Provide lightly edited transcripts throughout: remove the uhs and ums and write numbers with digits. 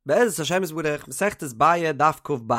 בעזרת השם יתברך, מסכת ביעא דף כ"ב.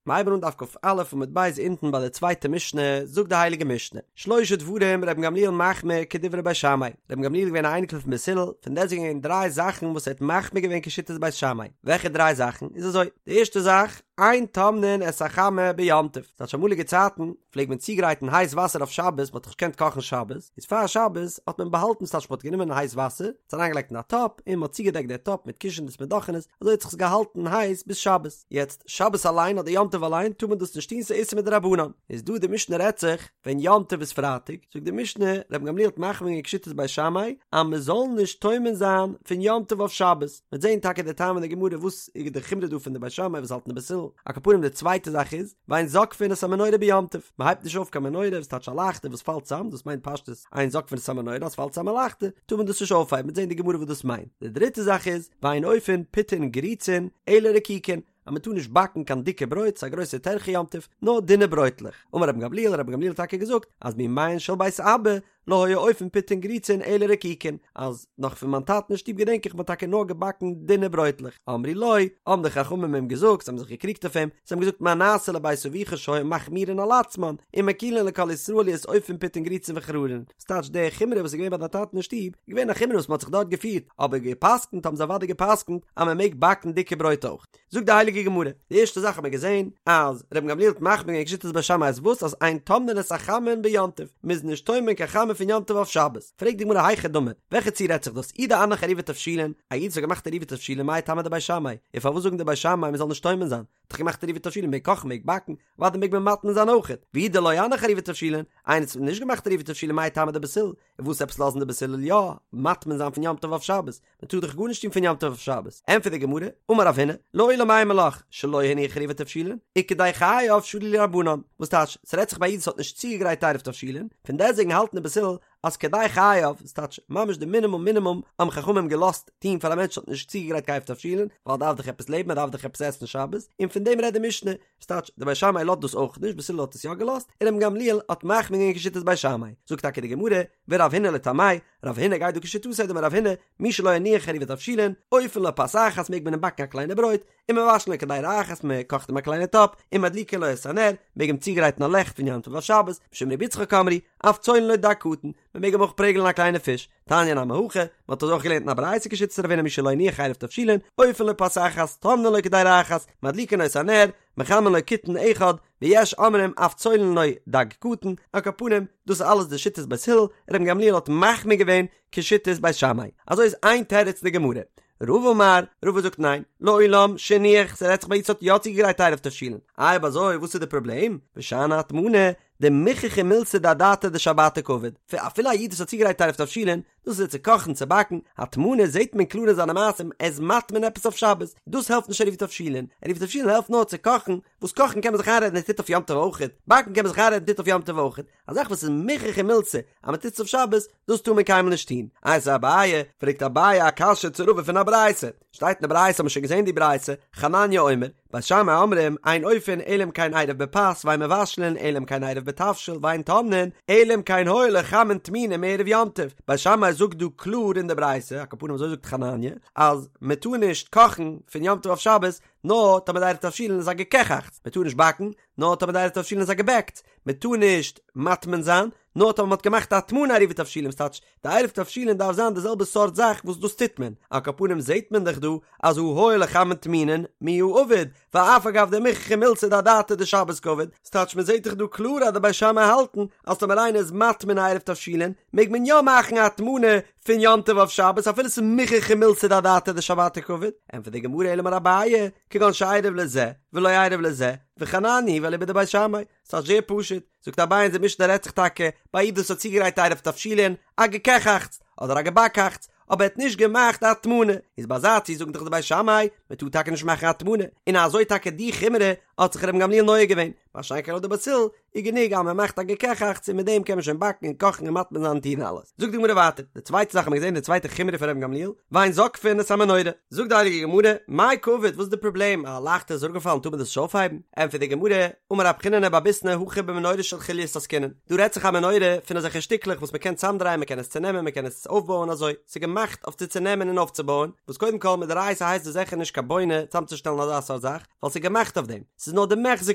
מ'הייבן אן דף כ"א עמוד ב' אונטן ביי די צווייטע משנה, זאגט די הייליגע משנה, שלשה דברים רבן גמליאל מחמיר כדברי בית שמאי, רבן גמליאל איז געווען א אייניקל פון בית הלל, פון דעסטוועגן געווען דריי זאכן וואס ער האט מחמיר געווען כשיטת בית שמאי, וועלכע דריי זאכן? איז אזוי, די ערשטע זאך, אין טומנין את החמה ביום טוב, ס'טייטש אמאליגע צייטן פלעגט מען צוגרייטן הייס וואסער אויף שבת, מ'האט דאך נישט געקענט קאכן שבת, איז פאר שבת האט מען באהאלטן ס'טייטש מ'האט גענומען הייס וואסער, עס אריינגעלייגט אין א טאפ, און מ'האט צוגעדעקט די טאפ מיט קישענעס מיט דאכענעס, אזוי האט זיך עס געהאלטן הייס ביז שבת. יעצט, שבת אליין אדער יום טוב אליין טאר מען דאס נישט טון ס'איז איסור מדרבנן. איז דא די משנה רעדט זיך ווען יום טוב איז פרייטאג, זאגט די משנה, רבן גמליאל האט מחמיר געווען כשיטת בית שמאי אז מ'זאל נישט טומן זיין פון יום טוב אויף שבת. מ'וועט זען טאקע די טעם אין די גמרא וואס איז די חומרא דא פון די בית שמאי וואס האלטן די בית הלל. על כל פנים די צווייטע זאך איז, ואין זוקפין את המנורה ביום טוב, מ'הייבט נישט אויף קיין מנורה וואס טייטש א לייכטער וואס פאלט צאם, דאס מיינט פשטות אין זוקפין את המנורה אז ס'פאלט צאם א לייכטער טאר מען דאס נישט אויפהייבן, מ'וועט זען די גמרא וואס דאס מיינט. די דריטע זאך איז, ואין אופין פיתין גריצין אלא רקיקין, אז מ'טאר נישט באקן קיין דיקע ברויט, ס'איז א גרויסע טרחה יום טוב, נאר דינע ברויטלעך. אמר רבן גמליאל, רבן גמליאל האט טאקע געזאגט אז מימיהן של בית אבא לא היו אופין פיתין גריצין אלא רקיקין, אז נאך פון מיין טאטן אין שטוב געדענק איך מ'האט טאקע נאר געבאקן דינע ברויטלעך, אמרו לו, האבן די חכמים אים געזאגט, זיי האבן זיך געקריגט אויף אים, זיי האבן געזאגט מה נעשה לבית אביך שהיו מחמירין על עצמן, ומקילין לכל ישראל להיות אופין פיתין גריצין וחררין, ס'טייטש די חומרא וואס איז געווען ביי דיין טאטן אין שטוב, איז געווען א חומרא וואס מ'האט זיך דארט געפירט, אבער גע'פסק'נט האבן זיי אוודאי גע'פסק'נט אז מ'מעג באקן דיקע ברויט אויך. זאגט די הייליגע גמרא, די ערשטע זאך האט מען געזען אז רבן גמליאל האט מחמיר געווען כשיטת בית שמאי אז וואס אז אין טומנין את החמין ביום טוב, מ'איז נישט טומן קיין חמין פון יום טוב אויף שבת, פרעגט די גמרא היכי דמי, וועלכע ציור רעדט זיך דאס, אי דאנח עירובי תבשילין, א איד וואס האט געמאכט עירובי תבשילין מאי טעמא דבית שמאי, און פארוואס זאגן די בית שמאי מ'זאל נישט טומן זיין, האט דאך געמאכט עירובי תבשילין מעג קאכן מעג באקן, אוודאי מעג מען מטמין זיין אויכעט, ואי דלא אנח עירובי תבשילין, איינער וואס האט נישט געמאכט עירובי תבשילין מאי טעמא דבית הלל, און וואס עפעס לאזן די בית הלל יא מטמין זיין פון יום טוב אויף שבת, מען טאר דאך גארנישט טון פון יום טוב אויף שבת, ענטפערט די גמרא, אמר רב הונא, לעולם אימא לך, שלא הניח עירובי תבשילין, וכדי חייו שרו להו רבנן, וואס טייטש, ס'רעדט זיך ביי א איד וואס האט נישט צוגעגרייט עירוב תבשילין, פון דעסטוועגן האלטן די בית הלל אז כדי חייו, ס'טייטש, ממש די מינימום מינימום האבן חכמים געלאזט טון פאר א מענטש וואס האט נישט צוגעגרייט קיין עירוב תבשילין, ווייל ער דארף דאך עפעס לעבן, ער דארף דאך עפעס עסן שבת, און פון דעם רעדט די משנה, ס'טייטש, די בית שמאי לאזט דאס אויך נישט, בית הלל האט עס יא געלאזט, און רבן גמליאל האט מחמיר געווען כשיטת בית שמאי, זאגט טאקע די גמרא, ורב הונא לטעמיה, רב הונא גייט דא כשיטתו דאמר רב הונא, מי שלא הניח עירובי תבשילין, אופין לו פת אחת מעג מען אים באקן א קליינע ברויט, ומבשלין לו קדירה אחת מען קאכט אים א קליינע טאפ, ומדליקין לו את הנר, מעג אים צוגרייטן א לעכט פון יום טוב אויף שבת, משום רבי יצחק אמרו, אף צולין לו דג קטן, מען מעג אים אויך פרעגלען א קליינע פיש, תניא נמי הכי, מען האט אזוי אויך געלערנט אין א ברייתא כשיטת רב הונא מי שלא הניח עירוב תבשילין, אופין לו פת אחת, טומנין לו קדירה אחת, מדליקין לו את הנר, מחמין לו קיתון אחד, ויש אומרים אף צולין לו דג קטן, על כל פנים, דאס איז אלעס די שיטת בית הלל, רבן גמליאל האט מחמיר געווען כשיטת בית שמאי. אזוי איז איין תירוץ אין די גמרא. רבא אמר, רבא זאגט ניין, לעולם שהניח, ס'רעדט זיך ביי א איד וואס האט יא צוגעגרייט עירוב תבשילין. איי אויב אזוי וואס איז די פראבלעם? ושאני הטמנה, דמוכחא מילתא דאדעתא דשבתא קעביד. אפילו א איד וואס האט צוגעגרייט עירוב תבשילין, דאס איז צו קאכן צו באקן, הטמנה זעט מען קלאר אין זיינע מעשים ער איז מטמין עפעס אויף שבת, דאס העלפט נישט עירוב תבשילין, עירוב תבשילין העלפט נאר צו קאכן, וואס קאכן קען מען זיך איינרעדן ער טוט אויף יום טוב אויכעט, באקן קען מען זיך איינרעדן טוט אויף יום טוב אויכעט, א זאך וואס איז מוכחא מילתא אז מען טוט עס אויף שבת, דאס טאר מען קיינמאל נישט טון. איתיביה אביי, פרעגט אביי א קשיא צו רבא פון א ברייתא, שטייט אין די ברייתא האט מען שוין געזען די ברייתא, חנניה אומר, בית שמאי אומרים, אין אופין אלא אם כן עירב בפת ואין מבשלין אלא אם כן עירב בתבשיל ואין טומנין אלא אם כן היו לו חמין טמונין מערב יום טוב, בית שמאי זאגט דא קלאר אין די ברייתא, על כל פנים אזוי זאגט חנניה, אז מען טאר נישט קאכן פון יום טוב אויף שבת, נאר טאמער די עירוב תבשילין איז א געקעכאכטס, מען טאר נישט באקן, נאר טאמער די עירוב תבשילין איז א געבעקטס, מען טאר נישט מטמין זיין, נאר טאמער מען האט געמאכט א הטמנה עירובי תבשילין, ס'טייטש, די עירוב תבשילין דארף זיין די זעלבע סארט זאך וואס דאס טוט מען, על כל פנים זעט מען דאך דא אז הא היו לו חמין טמונין מיהא עביד, ואף על גב דמוכחא מילתא דאדעתא דשבת קעביד, ס'טייטש מען זעט דאך דא קלאר אז די בית שמאי האלטן אז טאמער איינער איז מטמין א עירוב תבשילין מעג מען יא מאכן א הטמנה פון יום טוב אויף שבת אפילו ס'איז מוכחא מילתא דאדעתא דשבתא קעביד, ענטפערט די גמרא אלא אמר אביי, כגון שעירב לזה ולא עירב לזה, וחנניה היא ואליבא דבית שמאי, ס'איז זייער פשוט, זאגט אביי אונזער משנה רעדט זיך טאקע ביי א איד וואס האט צוגעגרייט עירוב תבשילין, א געקעכאכטס, אדער א געבאקאכטס, אבער ער האט נישט געמאכט א הטמנה, איז ביי אזא ציור זאגן דאך די בית שמאי, מען טאר טאקע נישט מאכן א הטמנה, און אזוי טאקע די חומרא האט זיך רבן גמליאל נוהג געווען. מה שאין כן לויט די בית הלל איז גענוג אז מען מאכט א געקעכאכץ און מיט דעם קען מען שוין באקן און קאכן און מטמין זיין און טון אלעס. זאגט די גמרא ווייטער, די צווייטע זאך האט מען געזען די צווייטע חומרא פון רבן גמליאל, ואין זוקפין את המנורה. זאגט די הייליגע גמרא, מאי קעביד, וואס איז די פראבלעם, א לייכטער איז אראפגעפאלן טאר מען דאס נישט אויפהייבן? ענטפערט די גמרא, אמר רב חיננא בר ביסנא הכא במנורה של חוליות עסקינן, דא רעדט זיך א מנורה פון אזעלכע שטיקלעך וואס מען קען צאמדרייען מען קען עס צונעמען מען קען עס אויפבויען אזוי, ס'איז געמאכט אויף צו צונעמען און אויפצובויען, וואס קודם כל מדאורייתא הייסט דאס זיכער נישט קיין בונה צאמצושטעלן אזא סארט זאך, ווייל ס'איז געמאכט אויף דעם, ס'איז נאר דמיחזי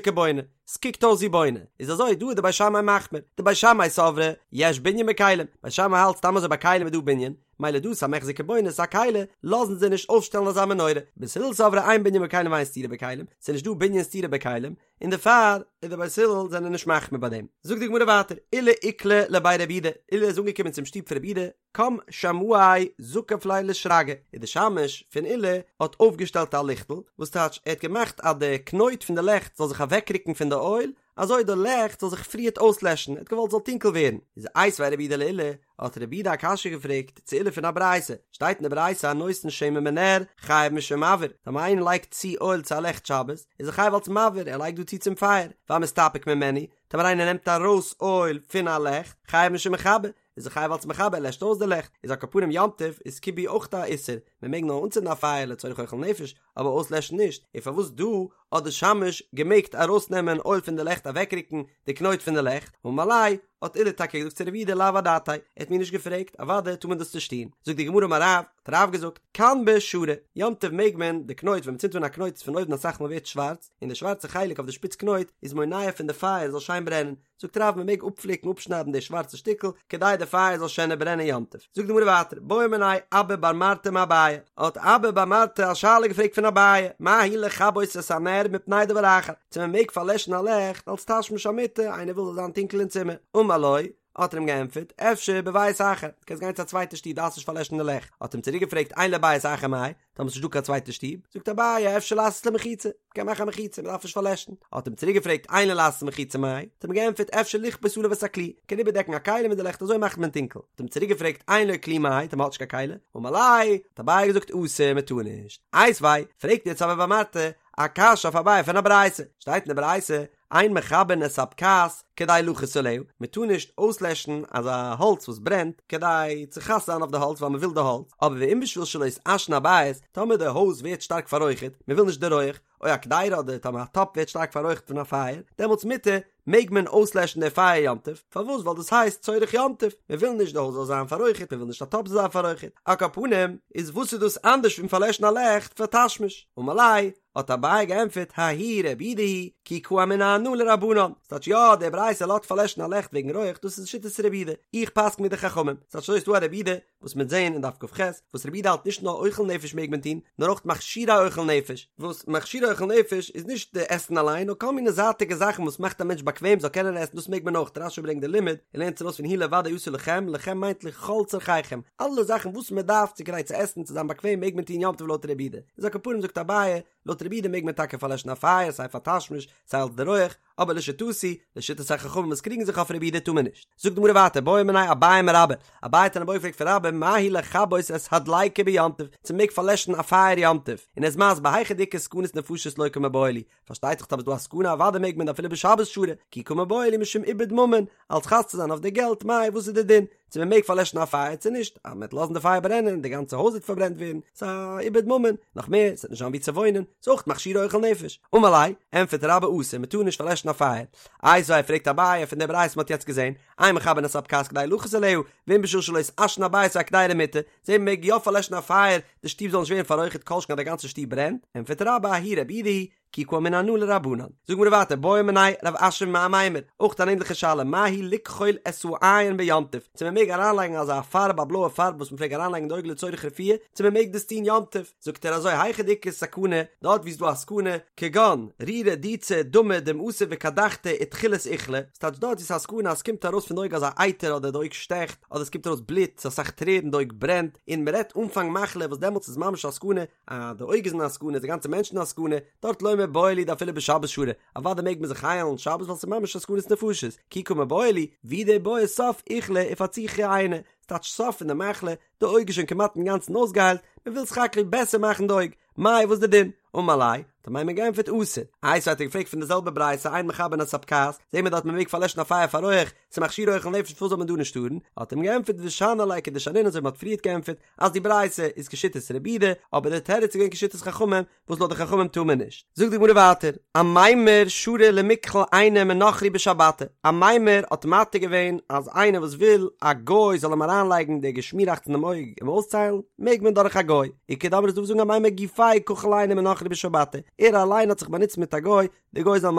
כבונה, ס'קוקט אויס ווי בונה, איז אזוי דא איז די בית שמאי מחמיר, דבית שמאי סברי יש בנין בכלים, בית שמאי האלט סתם אזוי ביי כלים איז דא בנין, מילא דא ס'א מיחזי כבונה ס'א כלי, לאזן זיי נישט אויפשטעלן אזא מנורה, בית הלל סברי אין בנין בכלים ואין סתירה בכלים, ס'איז נישט דא בנין סתירה בכלים, און דערפאר איז די בית הלל זענען נישט מחמיר ביי דעם. זאגט די גמרא ווייטער, עולא איקלע לבי רב יהודה, עולא איז אנגעקומען צום שטוב פון רב יהודה, קם שמעיה זקף ליה לשרגא, און די שמש פון עולא האט אויפגעשטעלט א ליכטל, וואס טייטש ער האט געמאכט אז די קנויט פון די לעכט זאל זיך אוועקרוקן פון די אויל, אזוי די לעכט זאל זיך פריערט אויסלעשן, ער האט געוואלט ס'זאל טונקל ווערן, איז איתיביה רב יהודה לעולא, האט רב יהודה א קשיא געפרעגט צו עולא פון א ברייתא, שטייט אין די ברייתא הנותן שמן בנר חייב משום מבעיר, טאמער איינער לייגט צו אויל צו א לעכט שבת, איז ער חייב אלס מבעיר, ער לייגט דא צו צום פייער, והמסתפק ממנו, טאמער איינער נעמט ארויס אויל פון א לעכט, חייב משום מכבה, איז ער חייב אלס מכבה, ער לעשט אויס די לעכט, איז על כל פנים יום טוב איז כיבוי אויך א איסור, מען מעג נאר אנצינדן א פייער לצורך אוכל נפש, אבער אויסלעשן נישט, און פארוואס דא האט די שמש געמעגט ארויסנעמען אויל פון די לעכט אוועקרוקן די קנויט פון די לעכט, אמר ליה, האט עולא טאקע געזאגט צו רב יהודה לאו אדעתאי, ער האט מיר נישט געפרעגט, אוודאי טאר מען דאס נישט טון, זאגט די גמרא אמר רב, האט רב געזאגט, כנבא שרי, יום טוב מעג מען די קנויט ווען מען צינדט אן א קנויט איז פון אויבן אסאך מאל ווערט שווארץ, און די שווארצע חלק אויף די שפיץ קנויט איז מונע פון די פייער זאל שיין ברענען, זאגט רב מען מעג אפפליקן אפשניידן די שווארצע שטיקל כדי די פייער זאל שענער ברענען יום טוב, זאגט די גמרא ווייטער בעא מיניה אבא בר מרתא מאביי, האט אבא בר מרתא א שאלה געפרעגט פון אביי, מהו לכבות את הנר מפני דבר אחר, צו מען מעג פארלעשן א לעכט אלס תשמיש המיטה, איינער וויל זאל זיין טונקל אין צימער, אמר לו, האט ער אים געענטפערט, אפשר בבית אחר, דו קענסט גיין צו א צווייטע שטוב דארפסט נישט פארלעשן די לעכט, האט אים צוריק געפרעגט אין לו בית אחר מאי, טאמער ס'נישט דא קיין צווייטע שטוב, זאגט אביי אפשר לעשות לו מחיצה, מ'קען מאכן א מחיצה, מ'דארף נישט פארלעשן. האט אים צוריק געפרעגט אין לו לעשות מחיצה מאי, האט אים געענטפערט אפשר לכפות עליו את הכלי, מ'קען איבערדעקן א כלי מיט די לעכט אזוי מאכט מען טונקל. האט אים צוריק געפרעגט אין לו כלי מאי, טאמער מ'האט נישט קיין כלי, אמר ליה, האט אביי געזאגט אסור, מ'טאר נישט. איתיביה, פרעגט יעצט אבא בר מרתא א קשיא אויף אביי פון א ברייתא, שטייט אין די ברייתא, אין מכבין את הבקעת כדי לחוס עליה, מען טאר נישט אויסלעשן אזא האלץ וואס ברענט כדי צו חס זיין אויף די האלץ ווייל מען וויל די האלץ, אבער ואם בשביל שלא יתעשן הבית, טאמער די הויז ווערט שטארק פאררויכערט, מען וויל נישט די רויעך, או הקדירה אדער טאמער א טאפ ווערט שטארק פאררויכערט פון א פייער, דעמאלטס מותר, מעג מען אויסלעשן די פייער יום טוב, פארוואס ווייל דאס הייסט צורך יום טוב, מען וויל נישט די הויז זאל זיין פאררויכערט, מען וויל נישט א טאפ זאל זיין פאררויכערט, על כל פנים, איז וואס איז דאס אנדערש פון פארלעשן א לעכט פאר תשמיש? אמר ליה, האט אביי געענטפערט ההיא רבי יהודה היא כי קאמינא אנא לרבנן, ס'טייטש יא די ברייתא לאזט פארלעשן א לעכט וועגן רויעך דאס איז שיטת רבי יהודה, איך פסקן ווי די חכמים, ס'טייטש אזוי ס'דא א רבי יהודה וואס מ'עט זעהן אין דף כ"ח וואס רבי יהודה האלט נישט נאר אוכל נפש מעג מען טון נאר אויך מכשירי אוכל נפש, וואס מכשירי אוכל נפש איז נישט די עסן אליין נאר כל מיני זייטיגע זאכן וואס מאכט א מענטש באקוועם זאל קענען עסן דאס מעג מען אויך, רש"י ברענגט די לימוד און לערנט עס ארויס פון הוא לבדו יעשה לכם, לכם מיינט לכל צרכיכם, אלע זאכן וואס מען דארף צו כדי צו עסן צו זיין באקוועם מעג מען טון יום טוב לויט רבי יהודה, איז על כל פנים זאגט אביי, לויט רבי יהודה מעג מען טאקע פארלעשן א פייער סיי פאר תשמיש סיי אלס די רויעך, אבער לשיטתי, לשיטת החכמים וואס קריגן זיך אויף רבי יהודה טאר מען נישט. זאגט די גמרא ווייטער בעא מיניה אביי מרבה, אביי האט אן איבעיא געפרעגט פון רבה מהו לכבות את הדליקה ביום טוב, צו מען מעג פארלעשן א פייער יום טוב, און ער איז מסביר היכא דאיכא סכנת נפשות לא קא מיבעיא לי, פארשטייט זיך טאמער איז דא א סכנה אוודאי מעג מען אפילו בשבת שרי, כי קא מיבעיא לי משום איבוד ממון, אלס חס צו זיין אויף די געלט, מאי וואס איז די דין? צו מען מעג פארלעשן א פייער צו נישט, אז מען וועט לאזן די פייער ברענען, די גאנצע הויז וועט פארברענט ווערן, ס'איז א איבוד ממון, נאך מער, ס'וועט נישט זיין וואו צו וואוינען, ס'איז אויך מכשירי אוכל נפש. אמר ליה, ענטפערט רבה אסור, מען טאר נישט פארלעשן א פייער. איתיביה פרעגט אביי פון די ברייתא מען האט יעצט געזען, אין מכבין את הבקעת כדי לחוס עליה, ואם בשביל שלא יתעשן הבית או הקדירה מותר, זעט מען מעג יא פארלעשן א פייער, די שטוב זאל נישט ווערן פאררויכערט כל שכן אז די גאנצע שטוב ברענט, ענטפערט רבה ההיא רבי יהודה היא, כי קאמינא אנא לרבנן. זאג מיר ווייטער בעא מיניה רב אשי מאמימר, אויך אן ענדליכע שאלה, מהו לכחול את העין ביום טוב, צו מען מעג אריינלייגן אזא פארב א בלויע פארב וואס מען פלעג אריינלייגן אין די אויג לצורך רפואה, צו מען מעג דאס טון יום טוב, זאגט ער אזוי היכא דאיכא סכנה, דארט וואו ס'איז דא א סכנה, כגון, רירא דיצא דמא דמעתא וקדחתא ותחילת איכלא, ס'טייטש דארט וואו ס'איז א סכנה אז ס'קומט ארויס פון די אויג אזא אייטער אדער די אויג שטעכט, אדער ס'קומט ארויס בלוט, ס'איז אסאך טרערן, די אויג ברענט, און מ'רעדט אנפאנג מחלה וואס דעמאלטס איז ממש א סכנה, אז די אויג איז אין א סכנה איז די גאנצע מענטש אין א סכנה, דארט לא מיבעיא לי דאפילו בשבת שרי, אוודאי מעג מען זיך היילן שבת ווייל ס'איז ממש א סכנת נפשות, כי קא מיבעיא לי, והוא דבעי סוף איכלא ופצוחי עינא, ס'טייטש סוף פון די מחלה, די אויג איז שוין כמעט אינגאנצן אויסגעהיילט, מ'וויל סך הכל בעסער מאכן די אויג, מאי וואס די דין? אמר ליה, האט אמימר געענטפערט אסור. איתיביה האט ער געפרעגט פון די זעלבע ברייתא אין מכבין את הבקעת, זעהן מיר דארט מען מעג פארלעשן א פייער פאר רויעך, ס'איז מכשירו אוכל נפש פארוואס זאל מען דא נישט טארן? האט אים געענטפערט ושני ליה כדשנין אזוי ווי מ'האט פריערט געענטפערט אז די ברייתא איז כשיטת רבי יהודה, אבער די תירוץ איז געווען כשיטת חכמים וואס לויט די חכמים טאר מען נישט. זאגט די גמרא ווייטער, אמימר שרא למכחל עיניה מנכרי בשבתא, אמימר האט מתיר געווען אז איינער וואס וויל א גוי זאל אים אריינלייגן די געשמיראכץ אינעם אויג אים אויסציילן, מעג מען דורך א גוי. איכא דאמרי איז דא וואס זאגן אמימר גופיה כחיל עיניה מנכרי בשבתא, ער אליין האט זיך באנוצט מיט א גוי, די גוי זאל אים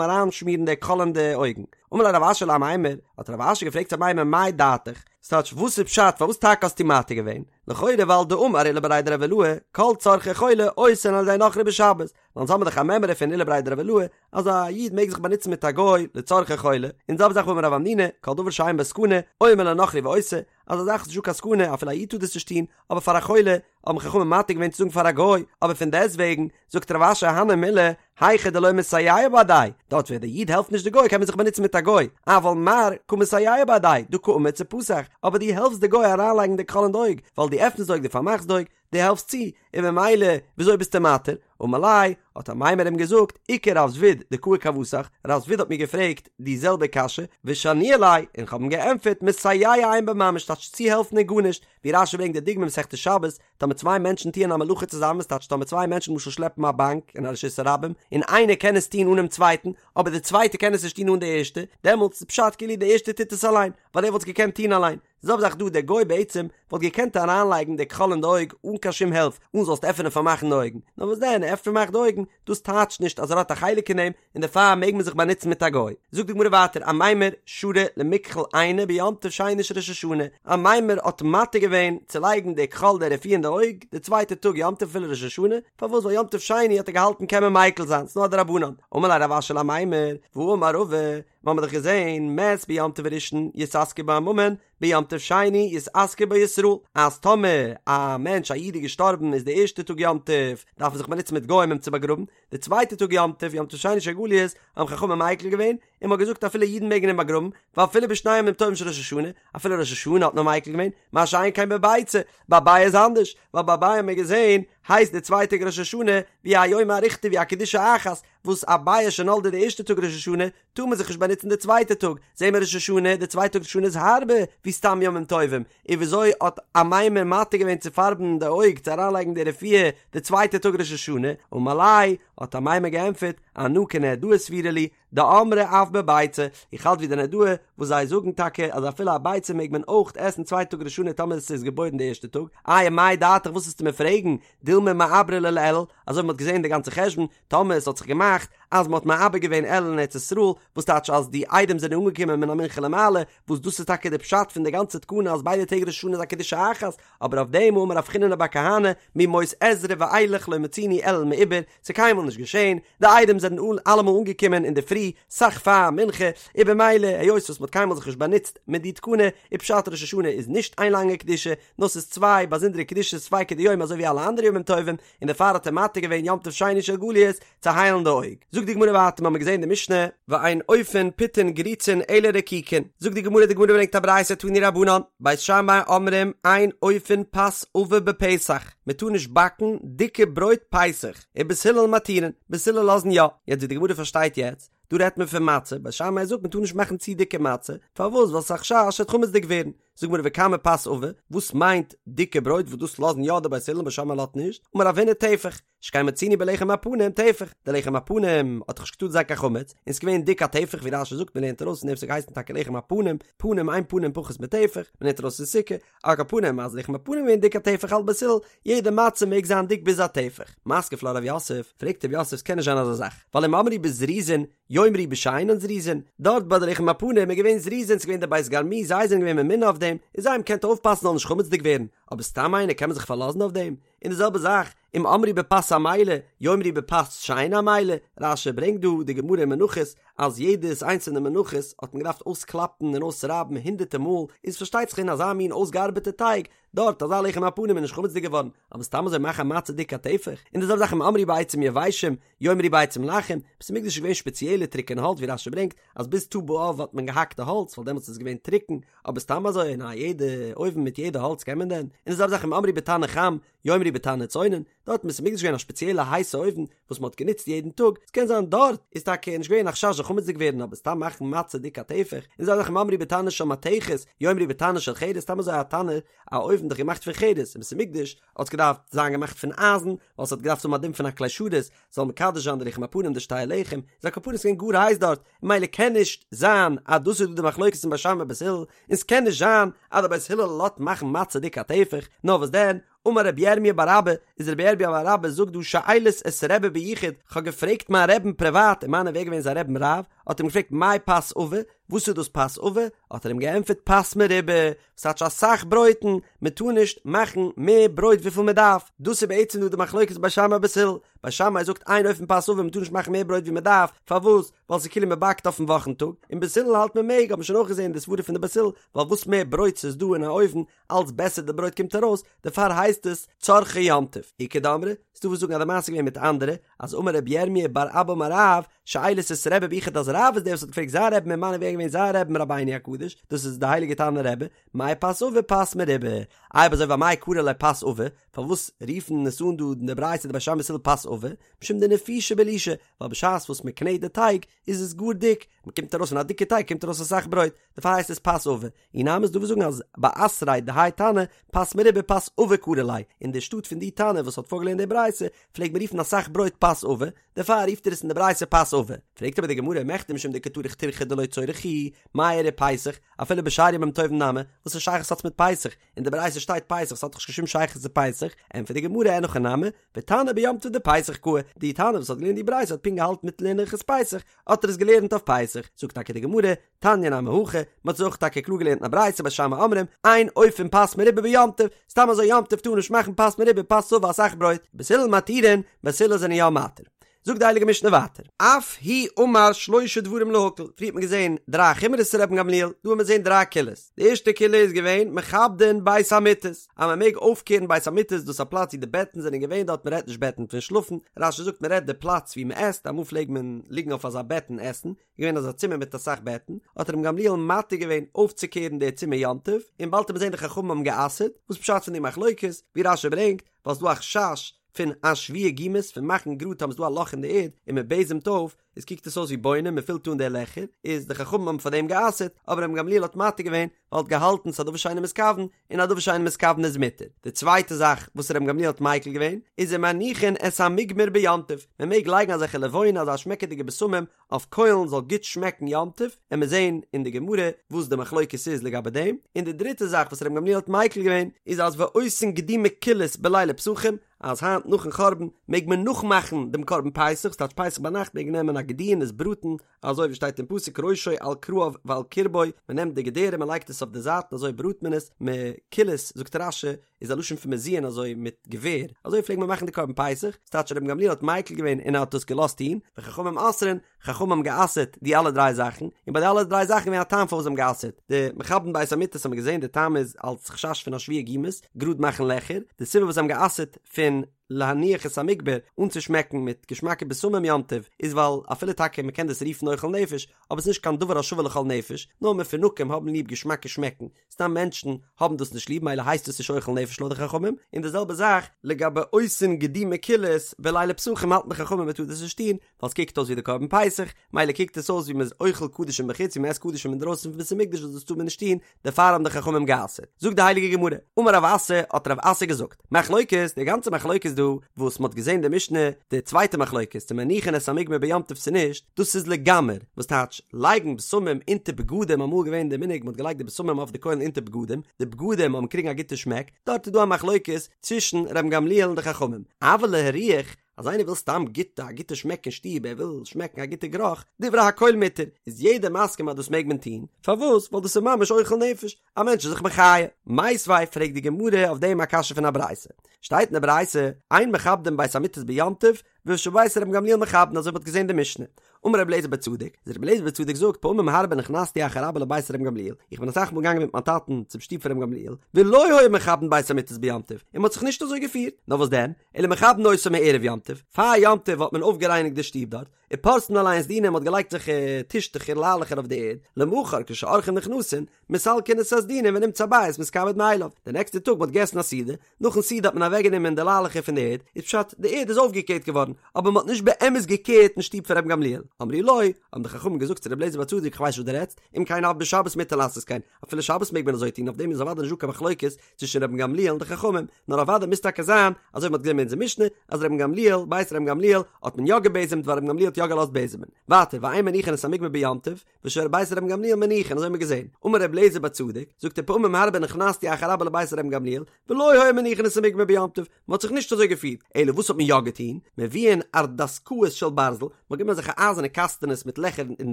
אריינשמירן די כחול אין די אויגן. אמר ליה רב אשי לאמימר, האט רב אשי געפרעגט צו אמימר מאי דעתיך, ס'טייטש וואס איז פשט פארוואס טאקע האסטו מתיר געווען? לכאורה ווייל דאמר עולא בריה דרב עילאי, כל צרכי חולה עושין על ידי נכרי בשבת, ווייל אונז האבן דאך א מימרא פון עולא בריה דרב עילאי אז א איד מעג זיך באנוצן מיט א גוי לצרכי חולה, און זעלבע זאך והאמר רב המנונא, כל דבר שאין בו סכנה, אומר לנכרי ועושה, אז א זאך איז נישטא קיין סכנה אפילו א איד טאר דאס נישט טון, אבער פאר א חולה האבן חכמים מתיר געווען צו זאגן פאר א גוי, אבער פון דעסט וועגן זאגט רב אשי הני מילי, היכא דלא מסייע בהדיה, דארט ווען דער איד העלפט נישט די גוי קען מען זיך באנוצן מיט א גוי, אבל מר קא מסייע בהדיה, דקא אמיץ ופתח, אבער דו העלפסט די גוי אריינלייגן די כחול אין די אויג, ווייל דו עפנסט די אויג דו פארמאכסט די אויג, דו העלפסט צו, און ממילא וויאזוי ביסטו מתיר? אמר ליה, האט אמימר אים געזאגט, איכא רב זביד דקאי כוותך, רב זביד האט מיר געפרעגט די זעלבע קשיא, ושניאי ליה, און כ'האב אים געענטפערט, מסייע אין בו ממש, טייטש צוהעלפן איז גארנישט, ווי רש"י ברענגט די דוגמא מסכת שבת, טאמער צוויי מענטשן טוען א מלאכה צוזאמען, ס'טייטש טאמער צוויי מענטשן למשל שלעפן א באנק אין א רשות הרבים, און איינער קען עס טון אנעם צווייטן, אבער די צווייטע קען עס נישט טון אן די ערשטע, דעמאלטס איז פשט כאילו די ערשטע טוט עס אליין, ווייל ער וואלט עס געקענט טון אליין. זעלבע זאך דא, דער גוי בעצם וואלט געקענט אריינלייגן די כחול אין די אויג אן קיין שום הילף, אן זאלסט עפענען פארמאכן די אויגן, נאר וואס דען, ער עפנט פארמאכט די אויגן, דאס טייטשט נישט אז ער האט א חלק אין דעם, און דערפאר מעג מען זיך באנוצן מיט א גוי. זאגט די גמרא ווייטער, אמימר שרא למכחל עיניה ביום טוב שני של ראש השנה, אמימר האט מתיר געווען צו לייגן די כחול די רפואה אין די אויג די צווייטע טאג יום טוב אפילו ראש השנה, פארוואס ווייל יום טוב שני האט ער געהאלטן קען מען מיקל זיין, ס'נאר א דרבנן. אמר ליה רב אשי לאמימר, והאמר רבא, מ'האמיר דאך געזען, מת ביום טוב הראשון יתעסקו בו עממין, ביום טוב שני יתעסקו בו ישראל, אז טאמער א מענטש א איד איז געשטארבן איז די ערשטע טאג יום טוב דארף מען זיך באנוצן מיט גוים אים צו באגראבן, די צווייטע טאג יום טוב, יום טוב שני של גליות, האבן חכמים מיקל געווען, און מ'האט געזאגט אפילו אידן מעגן אים באגראבן, ואפילו בשני ימים טובים של ראש השנה, אפילו ראש השנה האט מען מיקל געווען, מה שאין כן בביצה, ביי ביעא איז אנדערש, ווייל ביי ביעא האט מען געזען, הייסט די צווייטע טאג ראש השנה, ווי א יומא אריכתא ווי א קדושה אחת, וואס א ביעא שנולדה די ערשטע טאג ראש השנה, טאר מען זיך נישט באנוצן די צווייטע טאג, זעהן מיר ראש השנה, די צווייטע טאג ראש השנה איז הארבער ווי סתם ימים טובים, און וויאזוי האט אמימר מתיר געווען צו פארבן די אויג צו אריינלייגן די רפואה די צווייטע טאג ראש השנה, אמר ליה, האט אמימר געענטפערט, אנא כנהרדעא סבירא לי, דאמרי אף בביצה, איך האלט ווי די נהרדעא וואס זיי זאגן טאקע אז אפילו א ביצה מעג מען אויך עסן צווייטע טאג ראש השנה טאמער עס איז געבוירן די ערשטע טאג, איי מאי דעתיך וואס וועסטו מיר פרעגן, דילמא מעברי ליה לאלול, אזוי ווי מען האט געזען די גאנצע חשבון, טאמער עס האט זיך געמאכט אז מען האט מעבר געווען אלול אין ארץ ישראל, וואס טייטש אז די עדים זענען אנגעקומען מן המנחה למעלה, וואס דאס איז טאקע די פשט פון די גאנצע תקנה אז ביידע טעג ראש השנה איז א קדושה אחת, אבער אויף דעם האמר רב חיננא בר כהנא, מימות עזרא ואילך לא מצינו אלול מעובר, ס'איז קיינמאל נישט געשען, די עדים זענען אלעמאל אנגעקומען אינדערפרי, סאך פאר מנחה, און במילא היות וואס מען האט קיינמאל זיך נישט באנוצט מיט די תקנה, איז פשט ראש השנה איז נישט איין לאנגע קדושה, נאר ס'איז צוויי באזונדערע קדושות צוויי כדיומא אזוי ווי אלע אנדערע ימים טובים, און דערפאר האט ער מתיר געווען יום טוב שני של גליות צו היילן די אויג. זאגט די גמרא ווייטער, מ'האמיר געזען די משנה, ואין אופין פיתין גריצין אלא רקיקין, זאגט די גמרא, די גמרא ברענגט א ברייתא תנו רבנן, בית שמאי אומרים אין אופין פת עבה בפסח, מ'טאר נישט באקן דיקע ברויט פסח, ובית הלל מתירין, בית הלל לאזן יא, יעצט ווי די גמרא פארשטייט יעצט, דא רעדט מען פון מצה, בית שמאי זאגט מ'טאר נישט מאכן צו דיקע מצה, פארוואס? ווייל ס'איז א חשש ס'וועט חמצ'דיג ווערן, זאגט גמרא וכמה פת עבה, וואס מיינט דיקע ברויט וואס דאס לאזן יא די בית הלל בית שמאי לאזט נישט, אמר רב הונא טפח, שכן מצינו בלחם הפנים טפח, די לחם הפנים האט דאך נישט געטארט זיין קיין חמץ, און ס'איז געווען דיק א טפח ווי רש"י זאגט מ'לערנט ארויס פון דעם ס'האט געהייסן טאקע לחם הפנים, פנים אין פנים פחות מטפח, מ'לערנט ארויס אין סוכה, על כל פנים אז לחם הפנים איז געווען דיק א טפח האלט בית הלל, יעדע מצה מעג זיין דיק ביז א טפח. מתקיף לה רב יוסף, פרעגט רב יוסף ס'קען נישט זיין אזא זאך, ווייל אם אמרו בזריזין, יאמרו בשאינן זריזין, דארט ביי די לחם הפנים איז געווען זריזין, ס'איז געווען די בית גרמו, זיי זענען געווען ממונה אויף דעם, און זיי האבן געקענט אויפפאסן זאל נישט חמצ'דיג ווערן, אבער סתם איינער קען מען זיך פארלאזן אויף דעם? און די זעלבע זאך, אם אמרו בפת עמלה, יאמרו בפת שאינה עמלה, רש"י ברענגט דא די גמרא אין מנחות, אז יעדעס איינצעלנע מנחות האט מען געדארפט אויסקלאפן און אויסרייבן הונדערטער מאל, איז פארשטייט זיך אין אזא מין אויסגעארבעטע טייג, דארט אזא לחם הפנים איז נישט חמצ'דיג געווארן, אבער סתם אזוי מאכן א מצה דיק א טפח, און די זעלבע זאך אם אמרו בעצים יבשים, יאמרו בעצים לחים, בית המקדש איז געווען שפעציעלע טרוקענע האלץ ווי רש"י ברענגט אז ביז ט"ו באב האט מען געהאקט די האלץ ווייל דעמאלטס איז עס געווען טרוקן, אבער סתם אזוי אין א יעדע אויוון מיט יעדע האלץ קען מען דען? און די זעלבע זאך אם אמרו בתנור חם, יאמרו בתנור צונן, דארט אין בית המקדש איז געווען א שפעציעלע הייסע אויוון. וואס מען האט גענוצט יעדן טאג, ס'קען זיין דארט איז טאקע נישט געווען א חשש זאל חמצ'דיג ווערן אבער סתם מאכן מצה דיק א טפח, און אזוי אויך אם אמרו בתנור של מתכת, יאמרו בתנור של חרס, סתם אזוי א תנור, א אויוון דאך געמאכט פון חרס, אין בית המקדש האט עס געדארפט זיין געמאכט פון אייזן, ווייל ס'האט געדארפט האבן א דין פון א כלי שרת, זאל מקדש זיין די לחם הפנים די שתי הלחם, איז על כל פנים ס'געווען גאר הייס דארט, ממילא קען נישט זיין אז דאס איז דא די מחלוקת פון בית שמאי בית הלל, און ס'קען נישט זיין אז די בית הלל לאזט מאכן מצה דיק א טפח, נאר וואס דען, אמר רבי ירמיה בר אבא, איז רבי ירמיה בר אבא זאגט דא שאילית את רבי ביחוד, כ'האב געפרעגט מיין רעבן פריוואט, ומנו ווער געווען זיין רעבן רב, האט אים געפרעגט מאי פת עבה, וואס איז דאס פת עבה, האט ער אים געענטפערט פת מרובה, ס'טייטש אסאך ברויטן, מען טאר נישט מאכן מער ברויט וויפיל מען דארף, דאס איז בעצם דא די מחלוקת בית שמאי בית הלל, בית שמאי זאגט אין אופין פת עבה מען טאר נישט מאכן מער ברויט ווי מען דארף, פארוואס? ווייל ס'איז כאילו מען באקט אויפן וואכן טאג, און בית הלל האלט מען מעג, האט מען שוין אויך געזען די סברה פון די בית הלל, ווייל וואס מער ברויט ס'איז דא אין א אויוון, אלץ בעסער די ברויט קומט ארויס, דערפאר הייסט עס צרכי יום טוב. איכא דאמרי, ס'דא וואס זאגן אז די מעשה איז געווען מיט אנדערע, אז אמר רבי ירמיה בר אבא אמר רב, שאילית את רבי ביחוד אז רב איז דער וואס האט געפרעגט זיין רעבן ומנו ווער איז געווען זיין רעבן רבינו הקדוש, דאס איז די הייליגע תנא רבי, מאי פת עבה פת מרובה, אויב אזוי ואמאי קרי ליה פת עבה, פארוואס רופן עס אן דא אין די ברייתא די בית שמאי בית הלל פת עבה, משום דנפישא בלישה, ווייל בשעת וואס מען קנעט די טייג איז עס גאר דיק, מען קומט ארויס פון א דיקע טייג קומט ארויס אסאך ברויט, דערפאר הייסט עס פת עבה, אי נמי ס'דא וואס זאגן אז באתריה דהאי תנא פת מרובה פת עבה קרי ליה, אין די שטאט פון די תנא וואס האט פארגעלערנט די ברייתא פלעגט מען רופן אסאך ברויט פת עבה, דערפאר רופט ער עס אין די ברייתא פת עבה. פרעגט אבער די גמרא, מכדי משום דקא טרח טירחא דלא צורך הוא, מאי איריא פסח, אפילו בשאר ימים טובים נמי, וואס א שייכות האט עס מיט פסח, אין די ברייתא שטייט פסח ס'האט דאך נישט קיין שום שייכות צו פסח, ענטפערט די גמרא אין הכי נמי, ותנא ביום טוב דפסח קאי, די תנא וואס האט געלערנט די ברייתא האט פונקט געהאלטן מיטן לערנען הלכות פסח, האט ער עס געלערנט אויף פסח, זאגט טאקע די גמרא, תניא נמי הכי, מען האט עס אויך טאקע קלאר געלערנט אין א ברייתא בית שמאי אומרים, אין אופין פת מרובה ביום טוב, סתם אזוי יום טוב טאר מען נישט מאכן פת מרובה פת עבה אסאך ברויט, בית הלל מתירין, בית הלל זענען יא מתיר. זאגט די הייליגע משנה ווייטער, אף הוא אמר שלושה דברים להקל, פריער האט מען געזען דריי חומרות פון רבן גמליאל, דא האט מען געזען דריי קולות, די ערשטע קולא איז געווען מכבדין בית המיטות, אז מען מעג אויפקערן בית המיטות, דאס איז א פלאץ ווי די בעטן זענען געווען דארט, מען רעדט נישט בעטן פון שלאפן, רש"י זאגט מען רעדט די פלאץ ווי מען עסט, אמאל פלעג מען ליגן אויף אזא בעט און עסן, געווען אזא צימער מיט אסאך בעטן, האט רבן גמליאל מתיר געווען אויפצוקערן די צימער יום טוב, און באלד וועט מען זען די חכמים האבן גע'אסר'ט, וואס פשט פון די מחלוקת, ווי רש"י ברענגט, ווייל ס'דא א חשש פון אשוויי גומות, פון מאכן גראד טאמער ס'דא א לאך אין די ערד און מען בעזעמט אויף, איז קוקט עס אויס ווי בונה, מען פילט אן די לעכער, איז די חכמים האבן פאר דעם גע'אסר'ט, אבער רבן גמליאל האט מתיר געווען, ווייל האט געהאלטן ס'איז א דבר שאינו מתכוון, און א דבר שאינו מתכוון איז מותר. די צווייטע זאך וואס רבן גמליאל האט מיקל געווען, איז ומניחין את המוגמר ביום טוב, מען מעג לייגן אזעלכע לבונה אזא שמעקעדיגע בשמים אויף קוילן זאל גוט שמעקן יום טוב, עמיר זעהן אין די גמרא וואס די מחלוקת איז לגבי דעם, און די דריטע זאך וואס רבן גמליאל האט מיקל געווען איז אז ועושין גדי מקולס בלילי פסחים, אז היינט נאכן חורבן מעג מען נאכמאכן דעם קרבן פסח, ס'טייטש פסח ביינאכט מעג מען נעמען א גדי און עס בראטן, אזוי ווי שטייט אין פסוק ראשו על כרעיו ועל קרבו, מען נעמט די געדערים מען לייגט עס אויף די זייטן אזוי בראט מען עס, מקולס זאגט רש"י איז א לשון פון מזוין אזוי מיט געווער, אזוי פלעגט מען מאכן די קרבן פסח, ס'טייטש רבן גמליאל האט מיקל געווען און ער האט דאס געלאזט טון, וחכמים אוסרין, חכמים האבן גע'אסר'ט די אלע דריי זאכן, און ביי די אלע דריי זאכן איז געווען א טעם פארוואס זיי האבן גע'אסר'ט, די מכבדין בית המיטות האט מען געזען די טעם איז אלס חשש פון אשוויי גומות, גראד מאכן לעכער, די סיבה וואס זיי האבן גע'אסר'ט פון להניח את המוגמר, אנצושמעקן מיט געשמאקע בשמים יום טוב, איז ווייל אפילו טאקע מען קען דאס רופן אוכל נפש, אבער ס'איז נישט קיין דבר השווה לכל נפש, נאר מפונקים האבן ליב געשמאקע שמעקן, סתם מענטשן האבן דאס נישט ליב מילא הייסט עס נישט אוכל נפש לויט די חכמים, און די זעלבע זאך לגבי עושין גדי מקולס בלילי פסחים האלטן די חכמים מען טאר דאס נישט טון ווייל עס קוקט אויס ווי די קרבן פסח, מילא קוקט עס אויס ווי מען איז אוכל קדשים בחוץ ווי מען עסט קדשים אינדרויסן פון בית המקדש וואס דאס טאר מען נישט טון, דערפאר האבן די חכמים גע'אסר'ט. זאגט די הייליגע גמרא, אמר רב אסי, האט רב אסי געזאגט, מחלוקת, די גאנצע מחלוקת דא וואס מען האט געזען די משנה, די צווייטע מחלוקת צו מניחין את המוגמר ביום טוב צו נישט, דאס איז לגמר, וואס טייטש, לייגן בשמים אונטער בגדים, אמאל געווען די מנהג מען האט געלייגט די בשמים אויף די קוילן אונטער בגדים, די בגדים האבן קריגן א גוטע שמעק, דארט איז דא א מחלוקת צווישן רבן גמליאל און די חכמים, אבל להריח, אז איינער וויל סתם גוט א גוטע שמעק אין שטוב, ער וויל שמעקן א גוטע גערוך, דברי הכל מותר, איז יעדער מסכים אז דאס מעג מען טון, פארוואס? ווייל דאס איז ממש אוכל נפש, א מענטש איז זיך מחיה. מיתיבי פרעגט די גמרא אויף דעם א קשיא פון א ברייתא, שטייט אין די ברייתא, אין מכבדין בית המיטות ביום טוב, ושבית רבן גמליאל מכבדין אזוי ווי מ'האט געזען די משנה. אמר רבי אליעזר בן צדוק, איז רבי אליעזר בן צדוק זאגט פעמים הרבה נכנסתי אחר אבא לבית רבן גמליאל, איך בין אסאך מאל געגאנגען מיט מיין טאטן צום שטוב פון רבן גמליאל, ולא היו מכבדין בית המיטות ביום טוב, און מ'האט זיך נישט אזוי געפירט, נאר וואס דען, אלא מכבדין אותו מערב יום טוב, פאר יום טוב האט מען אויפגערייניגט די שטוב דארט, ופורסין עליהן סדינים מ'האט געלייגט אזעלכע טישטעכער ליילעכער אויף די ערד, למחר כשאורחים נכנסין, מסלקין את הסדינים ונמצא הבית מתכבד מאליו, די נעקסטע טאג מ'האט געגעסן א סעודה, נאכן סעודה האט מען אוועקגענומען די ליילעכער פון די ערד, איז פשט די ערד איז אויפגעקערט געווארן. געווארן, אבער מ'האט נישט באמת געקערט אין שטוב פון רבן גמליאל. אמרו לו, האבן די חכמים געזאגט צו רבי אליעזר בר צדוק איך ווייס וואס דו רעדסט, אם כן אף בשבת מותר לעשות כן, אפילו שבת מעג מען אזוי טון, אויף דעם איז אוודאי נישט דא קיין מחלוקת צווישן רבן גמליאל און די חכמים, נאר אוודאי מוז טאקע זיין, אזוי ווי מ'האט געזען אין אונזער משנה, אז רבן גמליאל, בית רבן גמליאל, האט מען יא געבעזעמט ווייל רבן גמליאל האט יא געלאזט בעזעמען. ווייטער, ואין מניחין את המוגמר ביום טוב, ושל בית רבן גמליאל מניחין, אזוי האט מען געזען. אמר רבי אליעזר בר צדוק, זאגט ער פעמים הרבה נכנסתי אחר אבא לבית רבן גמליאל, ולא היו מניחין את המוגמר ביום טוב, מען האט זיך נישט אזוי געפירט, אלא וואס האט מען יא געטון? מביאין ערדסקאות של ברזל, מען האט גענומען אזעלכע אייזערנע קאסטענעס מיט לעכער אין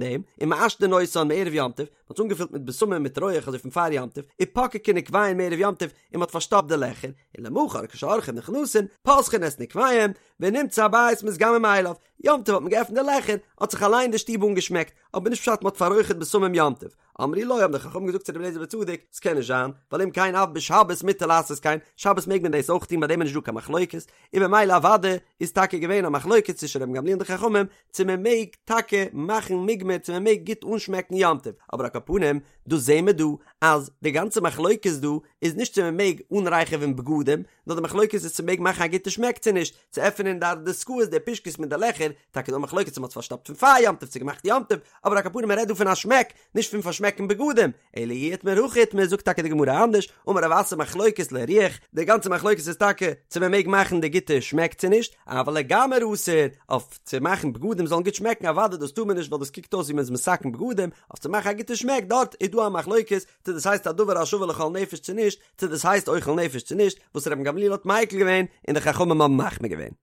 דעם, ומעשנין אותן מערב יום טוב, מען האט עס אנגעפילט מיט בשמים מיט רויעך אזוי פון פאר יום טוב, ופוקקין נקביהן מערב יום טוב, און מען האט פארשטאפט די לעכער, און למחר כשאורחים נכנסין, פותחין את נקביהם, ונמצא הבית מתגמר מאליו, יום טוב האט מען געעפנט די לעכער, האט זיך אליין די שטוב אנגעשמעקט, אבער נישט פשט מען האט פאררויכערט בשמים יום טוב. אמרו לו האבן די חכמים געזאגט צו רבי אליעזר בר צדוק, ס'קען נישט זיין, ווייל אם כן אף בשבת מותר לעשות כן, שבת מעג מען דאס אויך טון ביי דעם איז נישט דא קיין מחלוקת, און במילא אוודאי איז טאקע געווען א מחלוקת צווישן רבן גמליאל און די חכמים צו מען מעג טאקע מאכן מוגמר צו מען מעג גוט אנשמעקן יום טוב, אבער על כל פנים דאס זעהן מיר דא אז די גאנצע מחלוקת דא איז נישט צו מען מעג אנרייכעווען בגדים, נאר די מחלוקת איז צו מען מעג מאכן א גוטע שמעק צו נישט, צו עפענען די ערדסקאות די פושקעס מיט די לעכער, טאקע דא מחלוקת צו מען האט עס פארשטאפט פון פאר יום טוב צו געמאכט יום טוב, אבער על כל פנים מען רעדט דא פון א שמעק, נישט פון פארשמעקן בגדים, אלא אי איתמר הכי איתמר זאגט טאקע די גמרא אנדערש, אמר רב אסי מחלוקת להריח, די גאנצע מחלוקת איז טאקע צו מען מעג מאכן די גוטע שמעק צו נישט, אבל לגמר אסור, אויף צו מאכן בגדים זאלן גוט שמעקן אוודאי דאס טאר מען נישט ווייל דאס קוקט אויס ווי מען איז מתקן בגדים, אויף צו מאכן א גוטע שמעק דארט איז דא א מחלוקת צו דאס הייסט א דבר השווה לכל נפש צו נישט, צו דאס הייסט אוכל נפש צו נישט, וואס רבן גמליאל האט מיקל געווען און די חכמים האבן מחמיר געווען.